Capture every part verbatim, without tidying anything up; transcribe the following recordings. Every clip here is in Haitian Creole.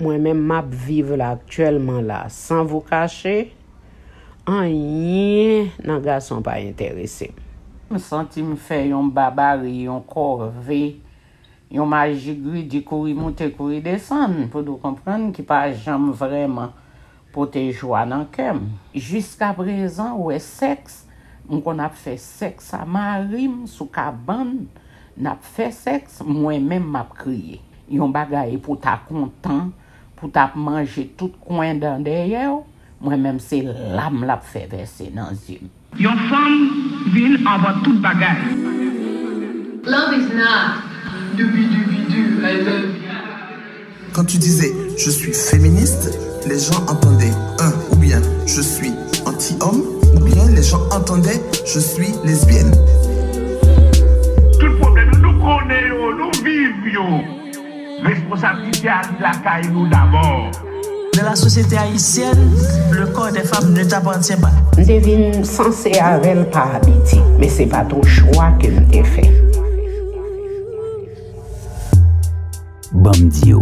Mwen menm m ap viv la aktyèlman la, sans vous cacher, anyen nan gason pa enterese m. M santi m fè yon babari, yon kòve, yon majigridi kouri moute, kouri desann, pou nou konprann, ki pa janm vrèman pote jwa nan kè m. Jiskaprezan, ou wè, sèks, m konn ap fè sèks a mari m sou kabann, n ap fè sèks, mwen menm m ap kriye. Yon bagay pou ta kontan, pou t ap manje tout kwen dan dèyè w, mwen menm se lam l ap fè vèse nan zye m. Yon fanm vin anvan tout bagay. Love is not doobie doobie doo, I love you. Quand tu disais je suis féministe, les gens entendaient un ou bien je suis anti-homme ou bien les gens entendaient je suis lesbienne. Tout pwoblèm yo, nou konnen yo, nou viv yo. Responsablite a li lakay nou dabò. Dans la société haïtienne, le corps des femmes ne t'appartient pas. M te vin sanse avè l pa abitye, men se pa t yon chwa ke m te fè. Ban m di w,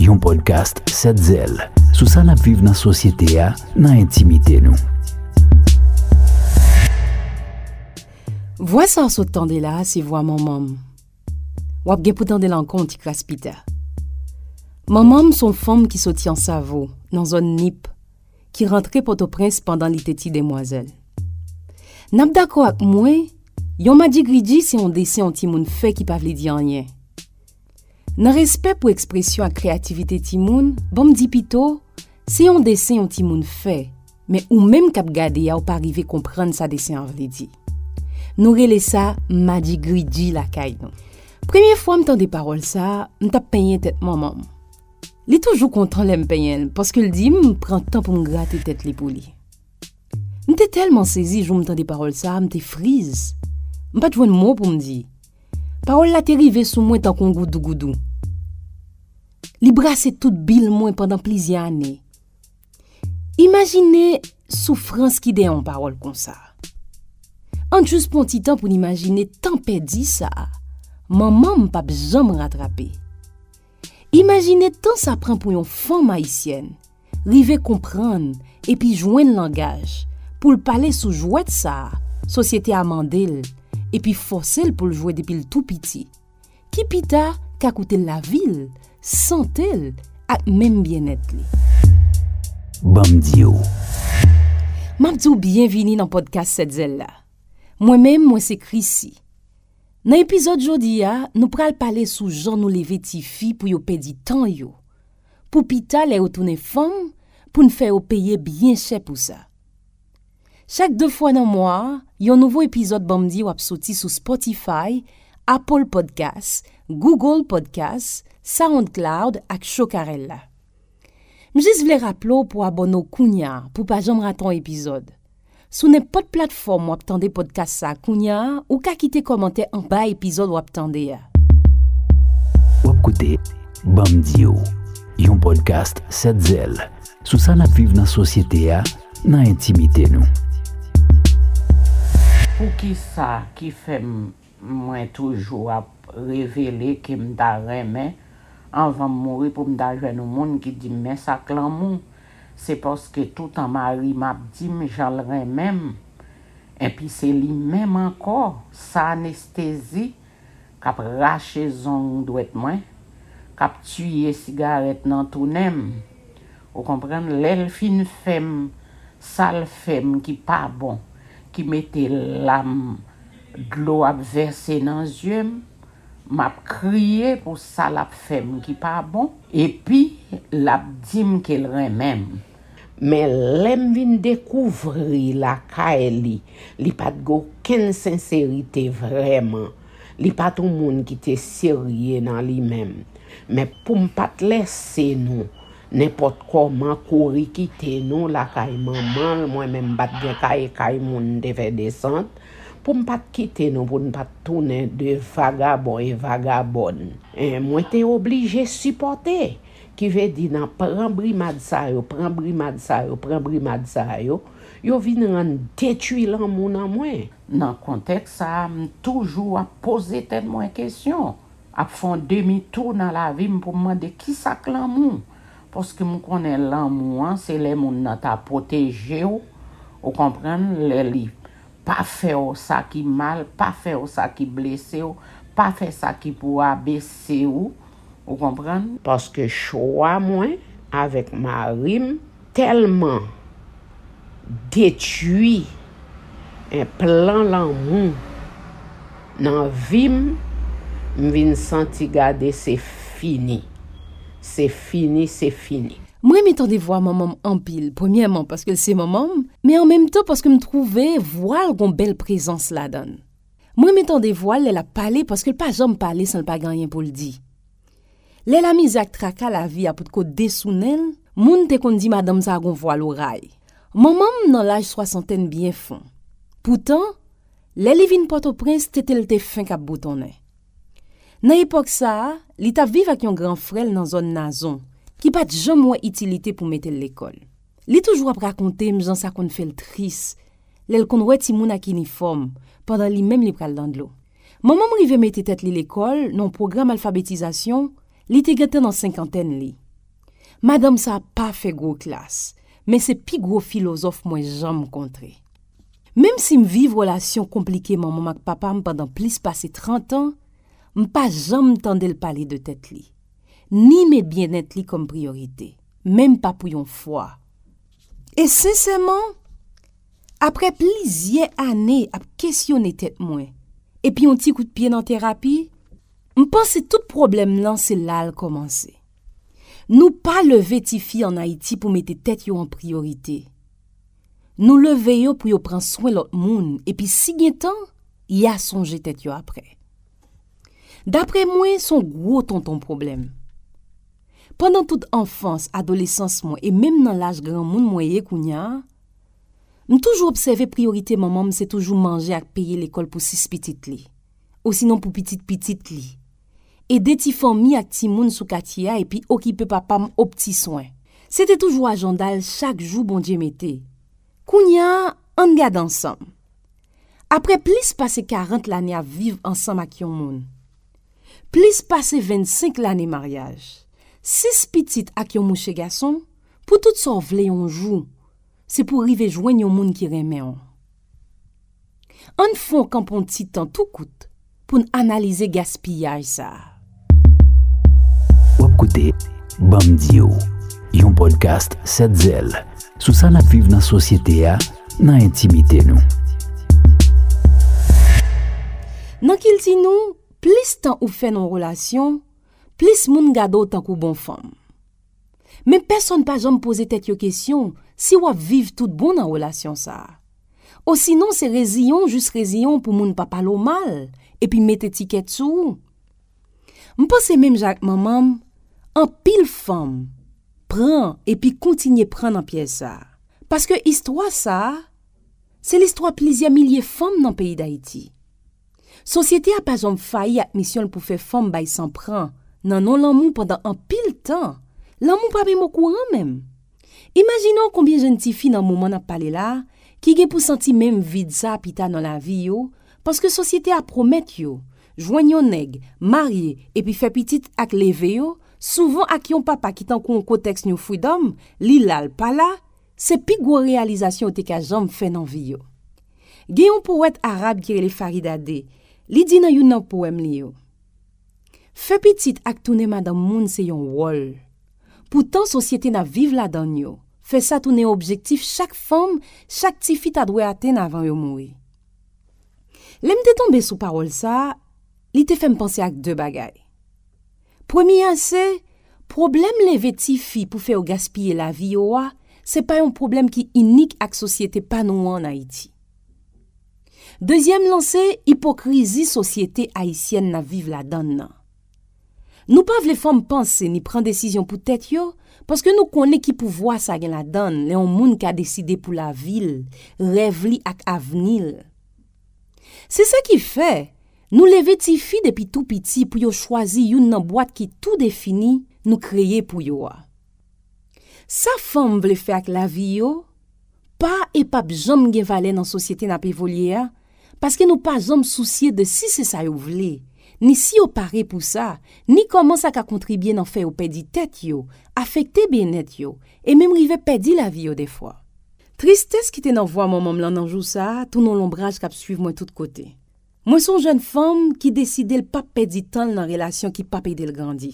yon pòdkast sèt zèl sou sa n ap viv nan sosyete a, nan entimite nou. Vwa sa w sot tande la a se vwa manman m. W ap gen pou tande l ankò yon ti kras pita. Manman m se yon fanm ki soti Ansavo, nan zòn Nip, ki rantre Pòtoprens pandan li te ti demwazèl. N ap dakò ak mwen, yon madigridi se yon desen yon timoun fè ki pa vle di anyen. Nan respè pou ekspresyon ak kreyativite timoun, ban m di pito, se yon desen yon timoun fè, men ou menm k ap gade a ou pa rive konprann sa desen an vle di. Nou rele sa madigridi lakay nou. Premye fwa m tande pawòl sa a, m t ap penyen tèt manman m. Li toujou kontan lè m penyen l, paske l di m pran tan pou m grate tèt li pou li. M te tèlman sezi jou m tande pawòl sa a, m te friz. M pa t jwenn mo pou m di. Pawòl la te rive sou mwen tankou yon goudougoudou. Li brase tout bil mwen pandan plizyè ane. Imajine soufrans ki dèyè yon pawòl konsa. Ann jis pran yon ti tan pou n imajine tan pèdi sa a, manman m p ap janm ratrape. Imajine tan sa pran pou yon fanm ayisyèn rive konprann epi jwenn langaj pou l pale sou jwèt sa a sosyete a mande l epi fòse l pou l jwe depi l tou piti, ki pita ka koute l lavi l, sante l ak menm byennèt li. Ban m di w. M ap di w byenvini nan pòdkas Sèt Zèl la. Mwen menm, mwen se Chrissy. Nan epizòd jodi a, nou pral pale sou jan nou leve tifi pou yo pèdi tan yo, pou pita lè yo tounen fanm, pou n fè yo peye byen chè pou sa. Chak de fwa nan mwa a, yon nouvo epizòd Ban m di w ap soti sou Spotify, Apple Podcast, Google Podcast, SoundCloud ak Chokarella. M jis vle raple w pou abòne w kounye a pou w pa janm rate yon epizòd. Sou nenpòt platfòm w ap tande pòdkas sa a kounye a, ou ka kite kòmantè anba epizòd w ap tande a. W ap koute Ban m di w, yon pòdkas Sèt Zèl sou sa n ap viv nan sosyete a, nan entimite nou. Poukisa ki fè m mwen toujou ap revele ke m ta renmen anvan m mouri pou m ta jwenn yon moun ki di m men sa k lanmou? Se paske toutan mari m ap di m jan l renmen m, enpi se li menm ankò, sa anestezi k ap rache zong dwèt mwen, k ap tiye sigarèt nan tou nen m. Ou konprann? Lè l fin fè m sa l fè m ki pa bon, ki mete lam, dlo ap vèse nan zye m, m ap kriye pou sa l ap fè m ki pa bon, epi l ap di m ke l renmen m. Men lè m vin dekouvri lakay li, li pa t gen okenn senserite vrèman. Li pa t yon moun ki te serye nan li menm. Men pou m pa t lèse nou nenpòt kòman kouri kite nou lakay manman l, mwen menm m pa t gen kay, kay moun m te fè desant, pou m pa t kite nou, pou n pa t tounen de vagabon e vagabòn. En, mwen te oblije sipòte. Ki vle di nan pran brimad sa yo, pran brimad sa yo, pran brimad sa yo, yo vin rann detwi lanmou nan mwen. Nan kontèks sa a, m toujou ap poze tèt mwen kesyon, ap fè yon demi tou nan lavi m pou m mande kisa k lanmou. Paske m konnen lanmou an, se lè moun nan ta pwoteje w, ou konprann, lè li pa fè w sa ki mal, pa fè w sa ki blese w, pa fè sa ki pou abese w, ou konprann. Paske chwa mwen avèk mari m tèlman detwi en plan lanmou nan vi m, m vin santi gade se fini. Se fini, se fini. Mwen renmen tande vwa manman m anpil, premyèman paske l se manman m, men an menm tan paske m twouve vwa l gon bèl prezans ladan l. Mwen renmen tande vwa l lè l ap pale paske l pa janm pale san l pa gen anyen pou l di. Lè lamizè ak traka lavi a potko desounen l, moun te konn di madanm sa a gon vwa loray. Manman m nan laj swasantèn byen fon. Poutan, lè li vin Pòtoprens, tete l te fenk ap boutonnen. Nan epòk sa a, li t ap viv ak yon gran frè l nan zòn Nazon, ki pa t janm wè itilite pou mete l lekòl. Li toujou ap rakonte m jan sa konn fè l tris, lè l konn wè timoun ak inifòm, pandan li menm li pral nan dlo. Manman m rive mete tèt li lekòl nan yon pwogram alfabetizasyon, li te gentan nan senkantèn li. Madanm sa a pa fè gwo klas, men se pi gwo filozòf mwen janm kontre. Menm si m viv relasyon konplike manman m ak papa m pandan plis pase trant an, m pa janm tande l pale de tèt li, ni met byennèt li kòm priyorite, menm pa pou yon fwa. E sensèman, apre plizyè ane ap kesyone tèt mwen, epi yon ti kout pye nan terapi, m panse tout pwoblèm nan se la l kòmanse. Nou pa leve tifi ann Ayiti pou mete tèt yo an priyorite. Nou leve yo pou yo pran swen lòt moun, epi si gen tan, y a sonje tèt yo apre. Dapre mwen, se yon gwo tonton pwoblèm. Pandan tout anfans, adolesans mwen e menm nan laj granmoun mwen ye kounye a, m toujou obsève priyorite manman m se toujou manje ak peye lekòl pou sis pitit li, osinon pou pitit pitit li, ede ti fanmi ak timoun sou katye a epi okipe papa m ob ti swen. Se te toujou ajanda l chak jou Bondye mete. Kounye a, ann gade ansanm. Apre plis pase karant lane ap viv ansanm ak yon moun, plis pase vennsenk lane maryaj, sis pitit ak yon mouche gason, pou tout sa w vle yon jou, se pou w rive jwenn yon moun ki renmen w. Ann fè w kanpe yon ti tan tou kout pou n analize gaspiyaj sa a. W ap koute Ban m di w, yon pòdkast Sèt Zèl, sou sa n ap viv nan sosyete a, nan entimite nou. Nan kilti nou, plis tan ou fè nan yon relasyon, plis moun gade w tankou bon fanm. Men pèsonn pa janm poze tèt yo kesyon si w ap viv tout bon nan relasyon sa a. Osinon, se reziyen w jis reziyen w pou moun pa pale w mal, epi met etikèt sou ou. M panse menm jan ak manman m, anpil fanm pran epi kontinye pran nan pyèj sa a. Paske istwa sa a, se listwa plizyè milye fanm nan peyi Dayiti. Sosyete a pa janm fayi ak misyon l pou fè fanm bay san pran nan non lanmou pandan anpil tan. Lanmou pa menm okouran menm. Imajine w konbyen jèn tifi nan moman n ap pale la a ki gen pou santi menm vid sa a pita nan lavi yo, paske sosyete a pwomèt yo jwenn yon nèg, marye, epi fè pitit ak leve yo, souvan ak yon papa ki tankou yon kotèks New Freedom, li la l pa la, se pi gwo reyalizasyon yo te ka janm fè nan vi yo. Gen yon powèt arab ki rele Faridade, li di nan youn nan powèm li yo, fè pitit ak tounen madanm moun se yon wòl. Poutan sosyete n ap viv ladan l yo fè sa tounen yon objektif chak fanm, chak tifi ta dwe atenn avan yo mouri. Lè m te tonbe sou pawòl sa a, li te fè m panse ak de bagay. Premye a se, pwoblèm leve tifi pou fè yo gaspiye lavi yo a, se pa yon pwoblèm ki inik ak sosyete pa nou an ann Ayiti. Dezyèm lan se ipokrizi sosyete ayisyèn n ap viv ladan l nan. Nou pa vle fanm panse ni pran desizyon pou tèt yo, paske nou konnen ki pouvwa sa gen ladan l lè yon moun ka deside pou lavi l, rèv li ak avni l. Se sa ki fè, nou leve tifi depi tou piti pou yo chwazi youn nan bwat ki tou defini nou kreye pou yo a. Sa fanm vle fè ak lavi yo, pa e p ap janm gen valè nan sosyete n ap evolye a, paske nou pa janm sousye de si se sa yo vle, ni si yo pare pou sa, ni kòman sa ka kontribye nan fè yo pèdi tèt yo, afekte byennèt yo, e menm rive pèdi lavi yo defwa. Tristès ki te nan vwa manman m lan nan jou sa a tounen yon lonbraj k ap swiv mwen tout kote. Mwen se yon jèn fanm ki deside l p ap pèdi tan l nan relasyon ki p ap ede l grandi.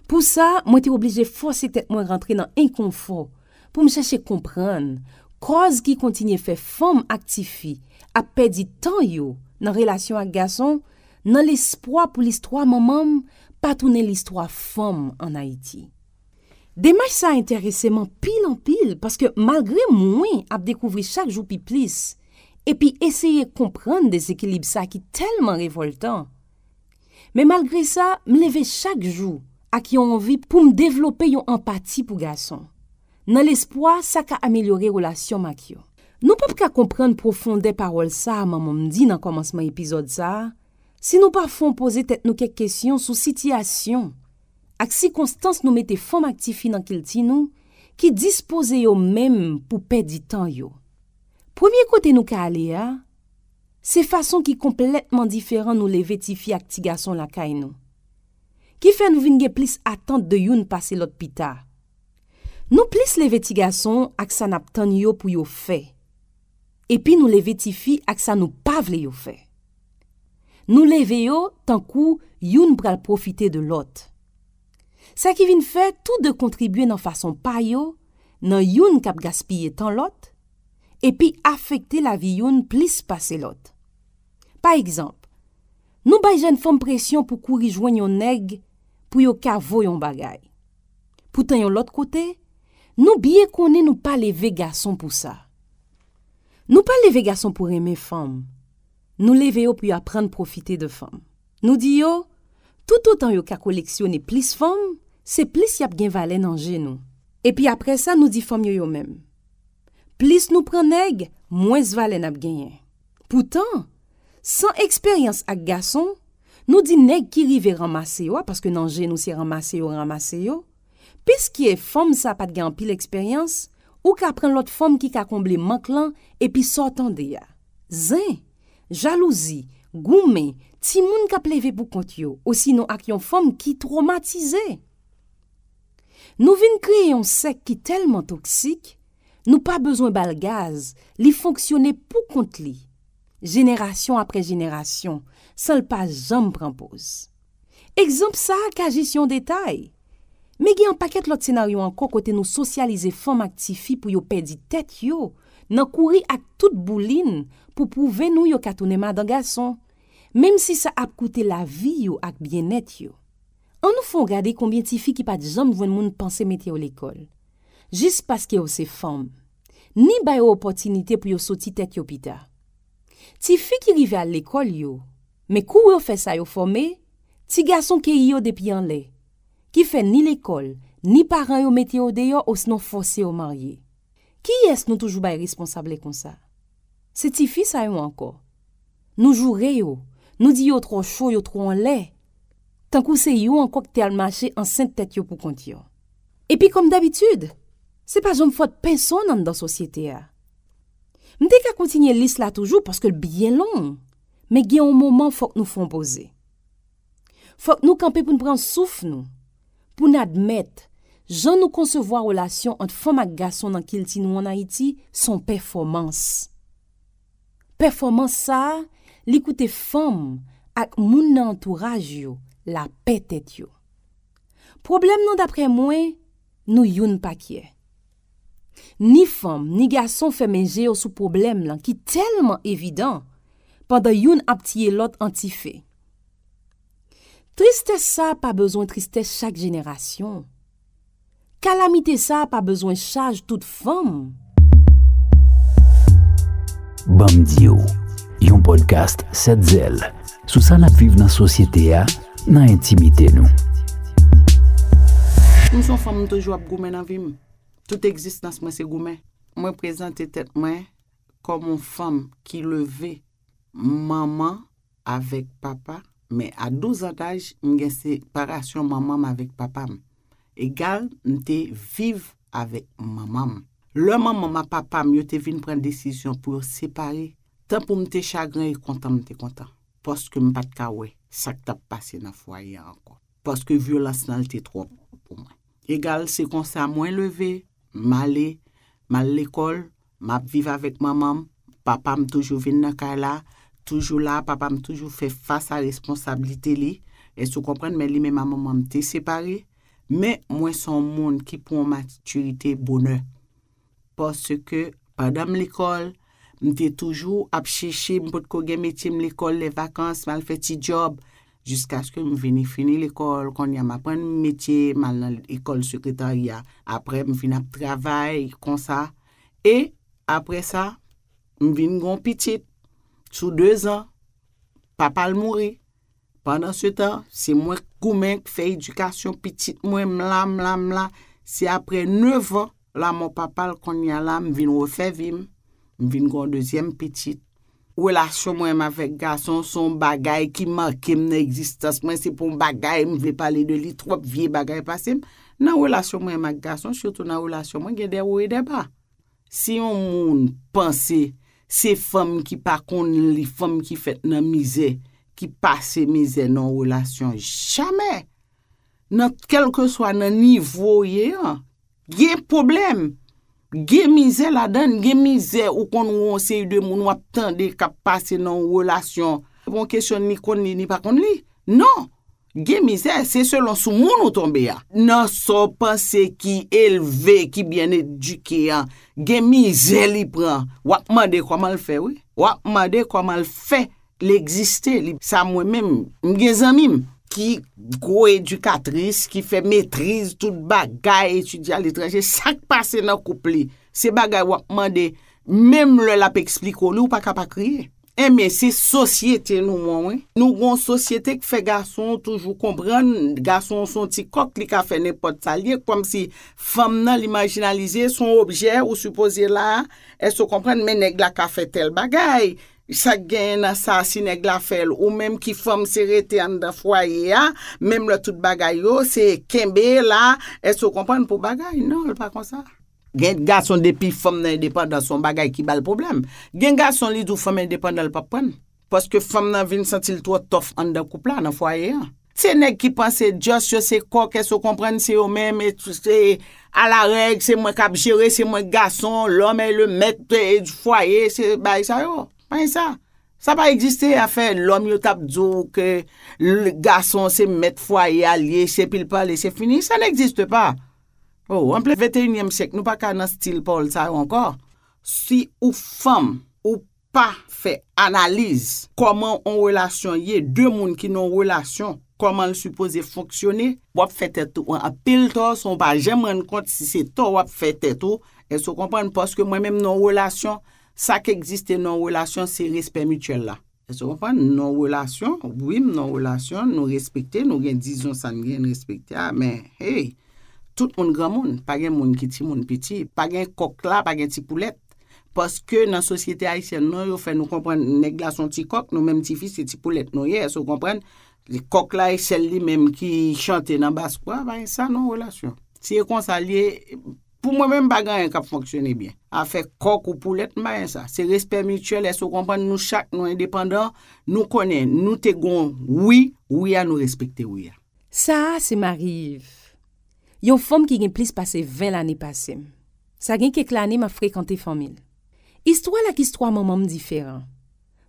Pou sa, mwen te oblije fòse tèt mwen rantre nan enkonfò pou m chèche konprann kòz ki kontinye fè fanm ak tifi ap pèdi tan yo nan relasyon ak gason, nan lespwa pou listwa manman m pa tounen listwa fanm ann Ayiti. Demach sa a enterese m anpil, anpil, paske malgre mwen ap dekouvri chak jou pi plis epi eseye konprann dezekilib sa ki tèlman revòltan, men malgre sa, m leve chak jou ak yon anvi pou m devlope yon anpati pou gason, nan lespwa sa ka amelyore relasyon m ak yo. Nou p ap ka konprann pwofondè pawòl sa a manman m di nan kòmansman epizòd sa a si nou pa fè yon poze tèt nou kèk kesyon sou sitiyasyon ak sikonstans nou mete fanm ak tifi nan kilti nou ki dispoze yo menm pou pèdi tan yo. Premye kote nou ka ale a, se fason ki konplètman diferan nou leve tifi ak ti gason lakay nou, ki fè nou vin gen plis atant de youn pase lòt pita. Nou plis leve ti gason ak sa n ap tann yo pou yo fè, epi nou leve tifi ak sa nou pa vle yo fè. Nou leve yo tankou youn pral pwofite de lòt. Sa ki vin fè tou de kontribye nan fason pa yo, nan youn k ap gaspiye tan lòt, epi afekte lavi youn plis pase lòt. Pa egzanp, nou bay jèn fanm presyon pou kouri jwenn yon nèg pou yo ka voye yon bagay. Poutan yon lòt kote, nou byen konnen nou pa leve gason pou sa. Nou pa leve gason pou renmen fanm. Nou leve yo pou yo aprann pwofite de fanm. Nou di yo, toutotan yo ka koleksyone plis fanm, se plis y ap gen valè nan je nou. Epi apre sa, nou di fanm yo yo menm, plis nou pran nèg, mwens valè n ap genyen. Poutan, san eksperyans ak gason, nou di nèg ki rive ranmase yo a, paske nan je nou se ranmase yo ranmase yo, piske fanm sa pa t gen anpil eksperyans, ou ka pran lòt fanm ki ka konble mank lan epi sa w tande a. Zen, jalouzi, goumen, timoun k ap leve pou kont yo, osinon ak yon fanm ki twomatize. Nou vin kreye yon sèk ki tèlman toksik, nou pa bezwen ba l gaz, li fonksyone pou kont li, jenerasyon apre jenerasyon, san l pa janm pran poz. Egzanp sa a ka jis yon detay, men gen yon pakèt lòt senaryo ankò kote nou sosyalize fanm ak tifi pou yo pèdi tèt yo nan kouri ak tout boulin pou pwouve nou yo ka tounen madan gason, menm si sa ap koute lavi yo ak byennèt yo. Ann nou fè yon gade konbyen tifi ki pa t janm jwenn moun panse mete yo lekòl, jis paske yo se fanm, ni ba yo opòtinite pou yo soti tèt yo pita. Tifi ki rive al lekòl yo, men kou yo fè sa yo fòme, ti gason keyi yo depi anlè, ki fè ni lekòl, ni paran yo mete yo deyò osnon fòse yo marye. Kiyès nou toujou bay responsab lè konsa? Se tifi sa yo ankò. Nou joure yo, nou di yo twò cho, yo twò anlè, tankou se yo ankò ki te al mache ansent tèt yo pou kont yo. Epi kòm dabitid, se pa janm fòt pèsonn anndan sosyete a. M te ka kontinye lis la toujou paske l byen long, men gen yon moman fòk nou fè yon poze. Fòk nou kanpe pou n pran souf nou, pou n admèt, jan nou konsevwa relasyon ant fanm ak gason nan kilti nou ann Ayiti se yon pèfòmans. Pèfòmans sa a, li koute fanm ak moun nan antouraj yo lapè tèt yo. Pwoblèm nan, daprè mwen, nou youn pa kyè. Ni fanm, ni gason fèmen je yo sou pwoblèm lan ki tèlman evidan, pandan youn ap tiye lòt an ti fe. Tristès sa a pa bezwen tristès chak jenerasyon. Kalamite sa a pa bezwen chaj tout fanm. Ban m di w, yon podcast sèt zèl sou sa n ap viv nan sosyete a, nan entimite nou. M se yon fanm, m toujou ap goumen nan vi m. Tout egzistans mwen se goumen. Mwen prezante tèt mwen kòm yon fanm ki leve manman avèk papa, men a douz an daj, m gen separasyon manman m avèk papa m. Egal, m te viv avèk manman m. Lè manman m ak papa m yo te vin pran desizyon pou yo separe, tan pou m te chagren e kontan m te kontan, paske m pa t ka wè sa k t ap pase nan fwaye a ankò. Paske vyolans nan l te twòp pou mwen. Egal, se konsa mwen leve, m ale, m al lekòl, m ap viv avèk manman m, papa m toujou vin nan kay la, toujou la, papa m toujou fè fas a responsablite li. Èske w konprann? Men li menm a manman m te separe. Men mwen se yon moun ki pran matirite bonè. Paske pandan m lekòl, m te toujou ap chèche, m potko gen metye, m lekòl, lè vakans, m al fè ti djòb, jiskaske m vini fini lekòl. Kounye a, m aprann metye, m al nan lekòl sekretarya. Apre, m vin ap travay konsa. E apre sa, m vin gen yon pitit sou dezan. Papa l mouri. Pandan se tan, se mwen k goumen, k fè edikasyon pitit mwen, m la, m la, m la. Se apre nevan lanmò papa l, kounye a la, m vin refè vi m. M vin gen yon dezyèm pitit. Relasyon mwen menm avèk gason se yon bagay ki make m nan egzistans mwen. Se pa yon bagay m vle pale de li twòp, vye bagay pase m. Nan relasyon mwen menm ak gason, sitou nan relasyon mwen, gen de wo e de ba. Si yon moun panse se fanm ki pa konn li, fanm ki fèt nan mizè, ki pase mizè nan yon relasyon, jamè! Nan kèlkeswa nan nivo w ye an, gen pwoblèm, gen mizè ladan l, gen mizè ou konn wè yon seri de moun w ap tande k ap pase nan yon relasyon. Se pa yon kesyon ni konn li, ni pa konn li. Non! Gen mizè, se selon sou moun ou tonbe a. Nan sa w panse ki elve, ki byen edike an, gen mizè li pran. W ap mande kòman l fè, wi. W ap mande kòman l fè l egziste. Li, sa mwen menm, m gen zanmi m ki gwo edikatris, ki fè metriz tout bagay, etidye aletranje. Sa k pase nan koup li? Se bagay w ap mande, menm lè l ap eksplike w li, ou pa ka pa kriye. Enben, se sosyete nou an, wi. Nou gon sosyete k fè gason toujou konprann, gason se yon ti kòk, li ka fè nenpòt sa l ye, kòmsi fanm nan, li majinalize, se yon objè, ou sipoze la, èske w konprann, men nèg la ka fè tèl bagay. Sa k genyen nan sa, si nèg la fè l, ou menm ki fanm, se rete anndan fwaye a, menm lè tout bagay yo, se kenbe la, èske w konprann, pou bagay? Non, l pa konsa. Gen gason depi fanm nan endepandan, se yon bagay ki ba l pwoblèm. Gen gason li di w fanm endepandan l p ap pran l. Paske fanm nan vin santi l twò tòf anndan koup la, nan fwaye an. Se nèg ki panse just yo se kòk, èske w konprann, se yo menm, e tou, se a la règ, se mwen k ap jere, se mwen k gason, l'homme est le maître, e, du foyer, se bagay sa yo. Pa gen sa. Sa pa egziste, afè lòm yo t ap di w ke l, gason se mèt fwaye a l ye, se epi l pale, se fini. Ça n'existe pas. Oh, an plen venteyinyèm syèk, nou pa ka nan stil pawòl sa yo ankò. Si ou fanm, ou pa fè analiz kòman yon relasyon ye, de moun ki nan yon relasyon, kòman l sipoze fonksyone, w ap fè tèt ou anpil tò, san w pa janm rann kont si se tò w ap fè tèt ou. Èske w konprann? Paske mwen menm nan yon relasyon, sa k egziste nan yon relasyon, se respè mityèl la. Èske w konprann? Nan yon relasyon, wi, m nan yon relasyon, nou respekte, nou gen dizon sa n gen, n respekte a, men, hey, tout moun granmoun, pa gen moun ki timoun piti, pa gen kòk la, pa gen ti poulèt. Paske nan sosyete ayisyèn nou, yo fè nou konprann nèg la se yon ti kòk, nou menm tifi se ti poulèt nou ye, èske w konprann? Kòk la e sèl li menm ki chante nan bas kwa, pa gen sa nan yon relasyon. Si e konsa l ye, pou mwen menm pa gen anyen k ap fonksyone byen. Afè kòk ou poulèt, m pa gen sa. Se respè mityèl, èske w konprann? Nou chak, nou endepandan, nou konnen, nou te gon wi, wi a, nou respekte wi a. Sa a se Marie Yves, yon fanm ki gen plis pase ven lane pase m. Sa gen kèk lane m ap frekante fanmi l. Istwa l ak istwa manman m diferan.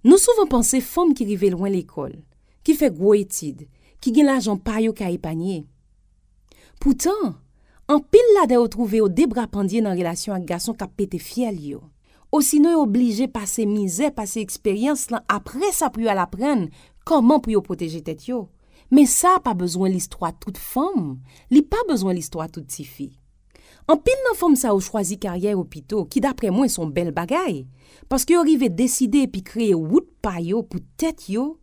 Nou souvan panse fanm ki rive lwen lekòl, ki fè gwo etid, ki gen lajan pa yo ka epanye. Poutan, anpil ladan yo twouve yo de bra pandye nan relasyon ak gason k ap pete fyèl yo. Osinon yo blije pase mizè, pase eksperyans lan apre sa pou yo al aprann kòman pou yo pwoteje tèt yo. Men sa pa bezwen listwa tout fanm, li pa bezwen listwa tout tifi. Anpil nan fanm sa yo chwazi karyè yo pito, ki daprè mwen se yon bèl bagay, paske yo rive deside epi kreye wout pa yo pou tèt yo,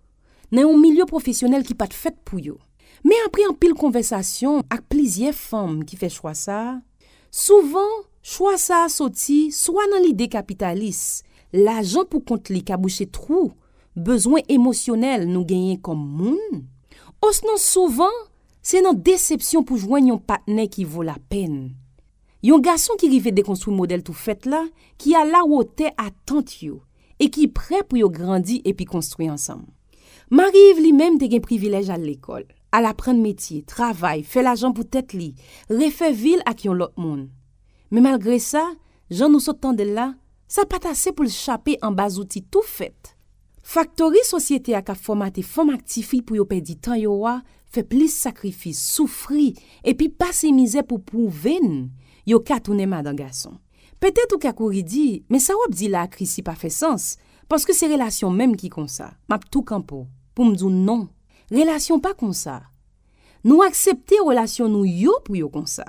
nan yon milye pwofesyonèl ki pa t fèt pou yo. Men apre anpil konvèsasyon ak plizyè fanm ki fè chwa sa a, souvan, chwa sa a soti swa nan lide kapitalis, lajan pou kont li ka bouche twou bezwen emosyonèl nou genyen kòm moun, osnon souvan, se nan desepsyon pou jwenn yon patnè ki vo lapèn. Yon gason ki rive dekonstwi modèl tou fèt la, ki alawotè atant yo, e ki prè pou yo grandi epi konstwi ansanm. Mari Iv li menm te gen privilèj al lekòl, al aprann metye, travay, fè lajan pou tèt li, refè vi l ak yon lòt moun. Men malgre sa, jan nou sot tande l la, sa pa t ase pou l chape anba zouti tou fèt. Faktori sosyete a k ap fòmate fanm ak tifi pou yo pèdi tan yo a, fè plis sakrifis, soufri, epi pase mizè pou pwouve n yo ka tounen madan gason. Petèt ou ka kouri di, men sa w ap di la a Chrissy pa fè sans, paske se relasyon menm ki konsa. M ap tou kanpe w pou m di w non. Relasyon pa konsa. Nou aksepte relasyon nou yo pou yo konsa.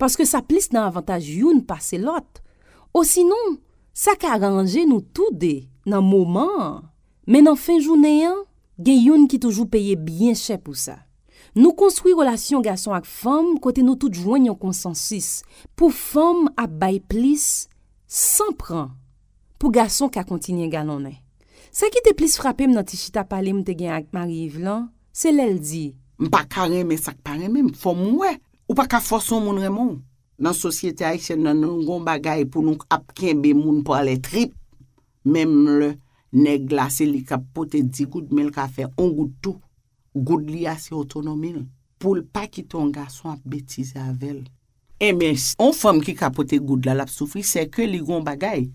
Paske sa plis nan avantaj youn pase lòt. Osinon, sa ka ranje nou toude nan moman an. Men nan fen jounen an, gen youn ki toujou peye byen chè pou sa. Nou konstwi relasyon gason ak fanm kote nou tout jwenn yon konsansis pou fanm ap bay plis san pran pou gason ka kontinye galonnen. Sa ki te plis frape m nan ti chita pale m te gen ak Mari Iv lan, se lè l di, M pa ka renmen sa k pa renmen m, fò m wè. Ou pa ka fòse yon moun renmen w. Nan sosyete ayisyèn nan, nou gon bagay pou nou ap kenbe moun pa lè trip. Menm lè nèg la se li k ap pote di goud, men l ka fè on goud tou. Goud li a se otonomi l. Pou l pa kite yon gason ap betize avè l. Enben, s- yon fanm ki ka pote goud la, l ap soufri, sèke li gon bagay.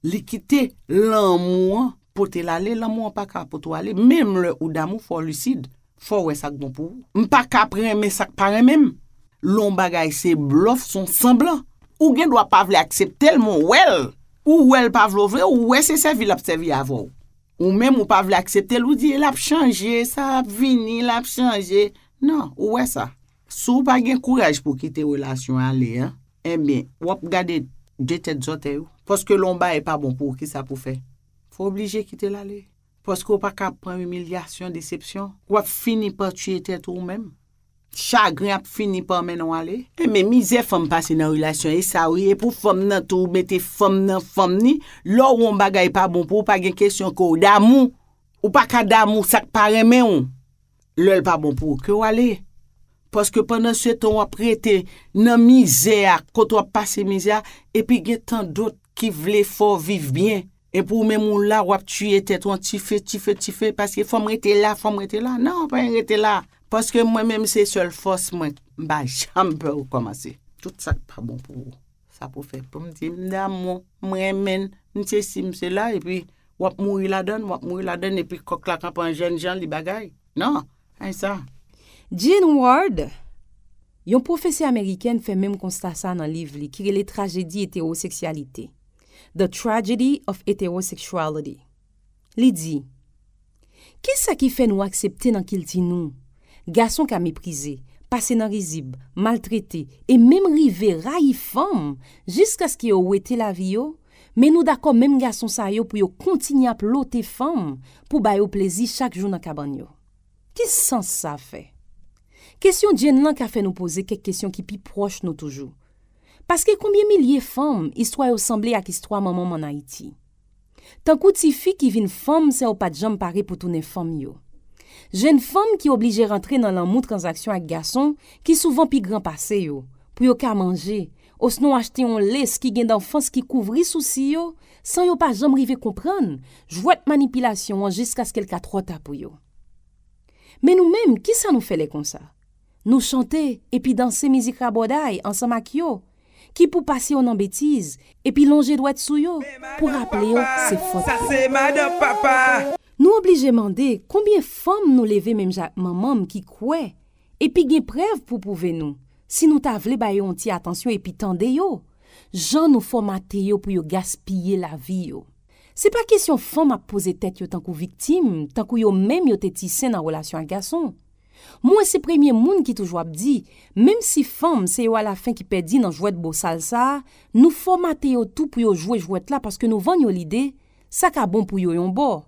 Li kite lanmou an pote l ale, lanmou an pa ka pote w ale, menm lè ou damou, fò w lisid, fò w wè sa k bon pou ou. M pa ka ap renmen sa k pa renmen m. Lè yon bagay se blòf, se yon sanblan. Ou gen dwa pa vle aksepte l, men w wè l. Ou wè l pa vle w vle, ou wè se sèvi l ap sèvi avè w. Ou menm ou pa vle aksepte l, ou di l ap chanje, sa ap vini, l ap chanje. Non, ou wè sa. Si w pa gen kouraj pou w kite relasyon ale an, enben, w ap gade de tèt zòtèy ou. Paske lè yon bagay pa bon pou ou, kisa pou w fè? Fò w oblije kite l ale. Paske w pa ka pran imilyasyon, desepsyon. W ap fini pa tiye tèt ou menm. Chagren ap fini pa mennen w ale. Enben, mizè fanm pase nan relasyon, e sa wi, e pou fanm nan tou, ou mete fanm nan fanm ni, lè w wè yon bagay pa bon pou ou, pa gen kesyon ke w damou. Ou pa ka damou sa k pa renmen w. Lè l pa bon pou ou, ke w ale. Paske pandan se tan w ap rete nan mizè a, kote w ap pase mizè a, epi gen tan dòt ki vle fè w viv byen. Epi w menm ou la, w ap tiye tèt ou an tife, tife, tife, paske fò m rete la, fò m rete la. Non, pa rete la. Paske mwen menm se sèl fòs mwen, m pa janm pè rekòmanse. Tout sa k pa bon pou ou, sa pou fè. Pou m di, m damou, m renmen l, m sesi, m sela, epi w ap mouri ladann, w ap mouri ladann, epi kòk la kanpe an jènjan, li bagay. Non, pa sa. Jean Ward, yon pwofesè amerikèn fè menm konsta sa nan liv li ki rele Trajedi Etewoseksyalite, The Tragedy of Heterosexuality. Li di, kisa ki fè nou aksepte nan kilti nou, gason ka meprize, pase nan rizib, maltrete, e menm rive rayi fanm jiskaske yo wete lavi yo, men nou dakò menm gason sa yo pou yo kontinye ap lote fanm pou ba yo plezi chak jou nan kabann yo? Ki sans sa fè? Kesyon Jean lan ka fè nou poze kèk kesyon ki pi pwòch nou toujou. Paske konbyen milye fanm istwa yo sanble ak istwa manman m ann Ayiti? Tankou tifi ki vin fanm san yo pa t janm pare pou tounen fanm yo. Jèn fanm ki oblije rantre nan lanmou tranzaksyon ak gason ki souvan pi gran pase yo, pou yo ka manje, osnon achte yon les ki gen danfans ki kouvri sousi yo, san yo pa janm rive konprann jwèt manipilasyon an jiskaske l ka twò ta pou yo. Men nou menm, kisa nou fè lè konsa? Nou chante epi danse mizik rabòday ansanm ak yo, ki pou pase yo nan betiz, epi lonje dwèt sou yo pou raple yo se fòt yo. Sa se madan papa. Nou oblije mande konbyen fanm nou leve menm jan ak manman m ki kwè, epi gen prèv pou pwouve nou, si nou ta vle ba yo yon ti atansyon epi tande yo, jan nou fòmate yo pou yo gaspiye lavi yo. Se pa kesyon fanm ap poze tèt yo tankou viktim, tankou yo menm yo te ti sen nan relasyon ak gason. Mwen se premye moun ki toujou ap di, menm si fanm se yo alafen ki pèdi nan jwèt bosal sa a, nou fòmate yo tou pou yo jwe jwèt la paske nou vann yo lide, sa ka bon pou yo yon bò.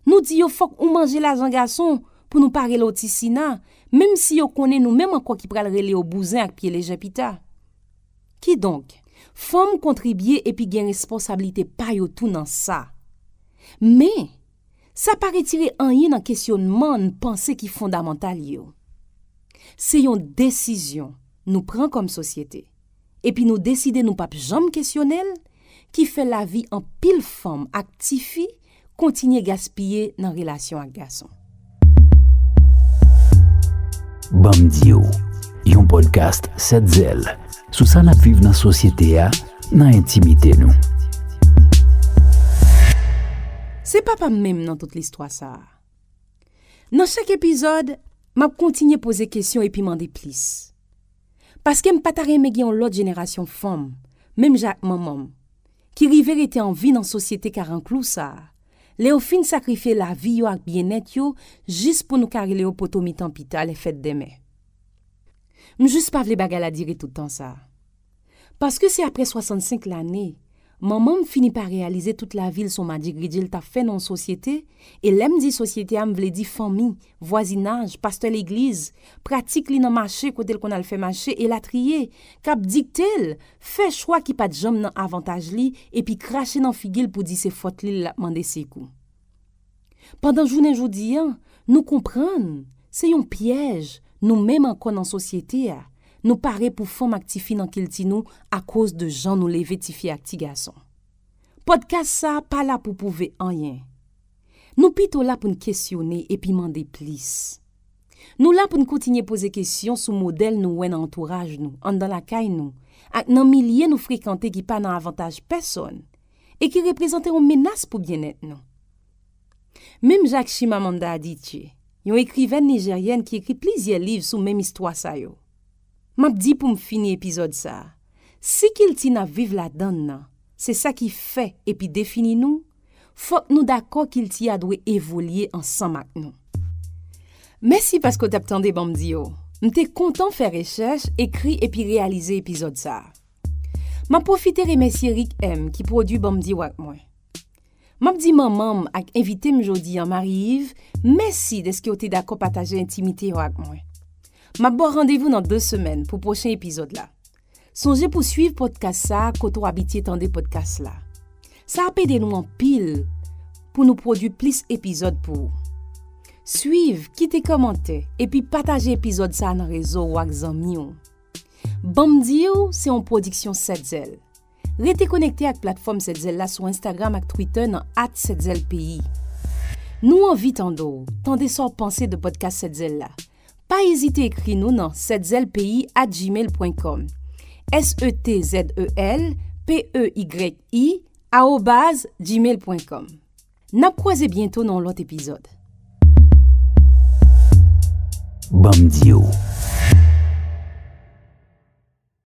Nou di yo fòk ou manje lajan gason pou nou pa rele w ti Sina, menm si yo konnen nou menm ankò ki pral rele yo bouzen ak pye lejè pita. Kidonk, fanm kontribye epi gen responsablite pa yo tou nan sa. Men, sa pa retire anyen nan kesyonman n panse ki fondamantal yo. Se yon desizyon nou pran kòm sosyete, epi nou deside nou p ap janm kesyone l, ki fè lavi anpil fanm ak tifi kontinye gaspiye nan relasyon ak gason. Ban m di w, yon podcast Sèt Zèl sou sa n ap viv nan sosyete a, nan entimite nou. Se papa m menm nan tout listwa sa a. Nan chak epizòd, m ap kontinye poze kesyon epi mande plis. Paske m pa ta renmen gen yon lòt jenerasyon fanm, menm jan ak manman m, ki rive rete an vi nan sosyete karanklou sa a, lè yo fin sakrifye lavi yo ak byennèt yo jis pou nou ka rele yo poto mitan pita lè fèt denmen. M jis pa vle bagay la dire tout tan sa a. Paske se apre swasannsenk lane, manman m fini pa reyalize tout lavi l se yon madjigridje l t ap fè nan yon sosyete, e lè m di sosyete a, m vle di fanmi, vwazinaj, pastè legliz, pratik li nan mache kote l konn al fè mache, elatriye, k ap dikte l, fè chwa ki pa t janm nan avantaj li, epi krache nan figi l pou di se fòt li l ap mande sekou. Pandan jounen jodi a, nou konprann se yon pyèj nou menm ankò nan sosyete a, nou pare pou fanm ak tifi nan kilti nou akoz de jan nou leve tifi ak ti gason. Pòdkas sa a pa la pou pwouve anyen. Nou pito la pou n kesyone epi mande plis. Nou la pou n kontinye poze kesyon sou modèl nou wè nan antouraj nou, anndan lakay nou, ak nan milye nou frekante ki pa nan avantaj pèsòn e ki reprezante yon menas pou byennèt nou. Menm jan ak Chimamanda Adichie, yon ekrivèn nijeryèn ki ekri plizyè liv sou menm istwa sa yo. M ap di pou m fini epizòd sa a, si kilti n ap viv ladan l nan se sa ki fè epi defini nou, fòk nou dakò kilti a dwe evolye ansanm ak nou. Mèsi paske w t ap tande Ban m di w. M te kontan fè rechèch, ekri epi reyalize epizòd sa a. M ap pwofite remèsye Rick M ki pwodui Ban m di w ak mwen. M ap di manman m ak envite m jodi a, Marie Yves, mèsi dèske w te dakò pataje entimite yo ak mwen. M ap ba w randevou nan de semèn pou pwochen epizòd la. Sonje pou swiv pòdkas sa a kote w abitye tande pòdkas la. Sa ap ede nou anpil pou nou pwodui plis epizòd pou ou. Swiv, kite kòmantè, epi pataje epizòd sa a nan rezo w ak zanmi w. Ban m di w se yon pwodiksyon Sèt Zèl. Rete konekte ak platfòm Sèt Zèl la sou Instagram ak Twitter nan at Sèt Zèl Peyi. Nou anvi tande w, tande sa w panse de pòdkas Sèt Zèl la. Pa ezite ekri nou nan sèt zèl peyi at gmail pwen kòm. S E T Z E L P E Y I arobaz gmail pwen kòm. N ap kwaze byento nan yon lòt epizòd. Ban m di w,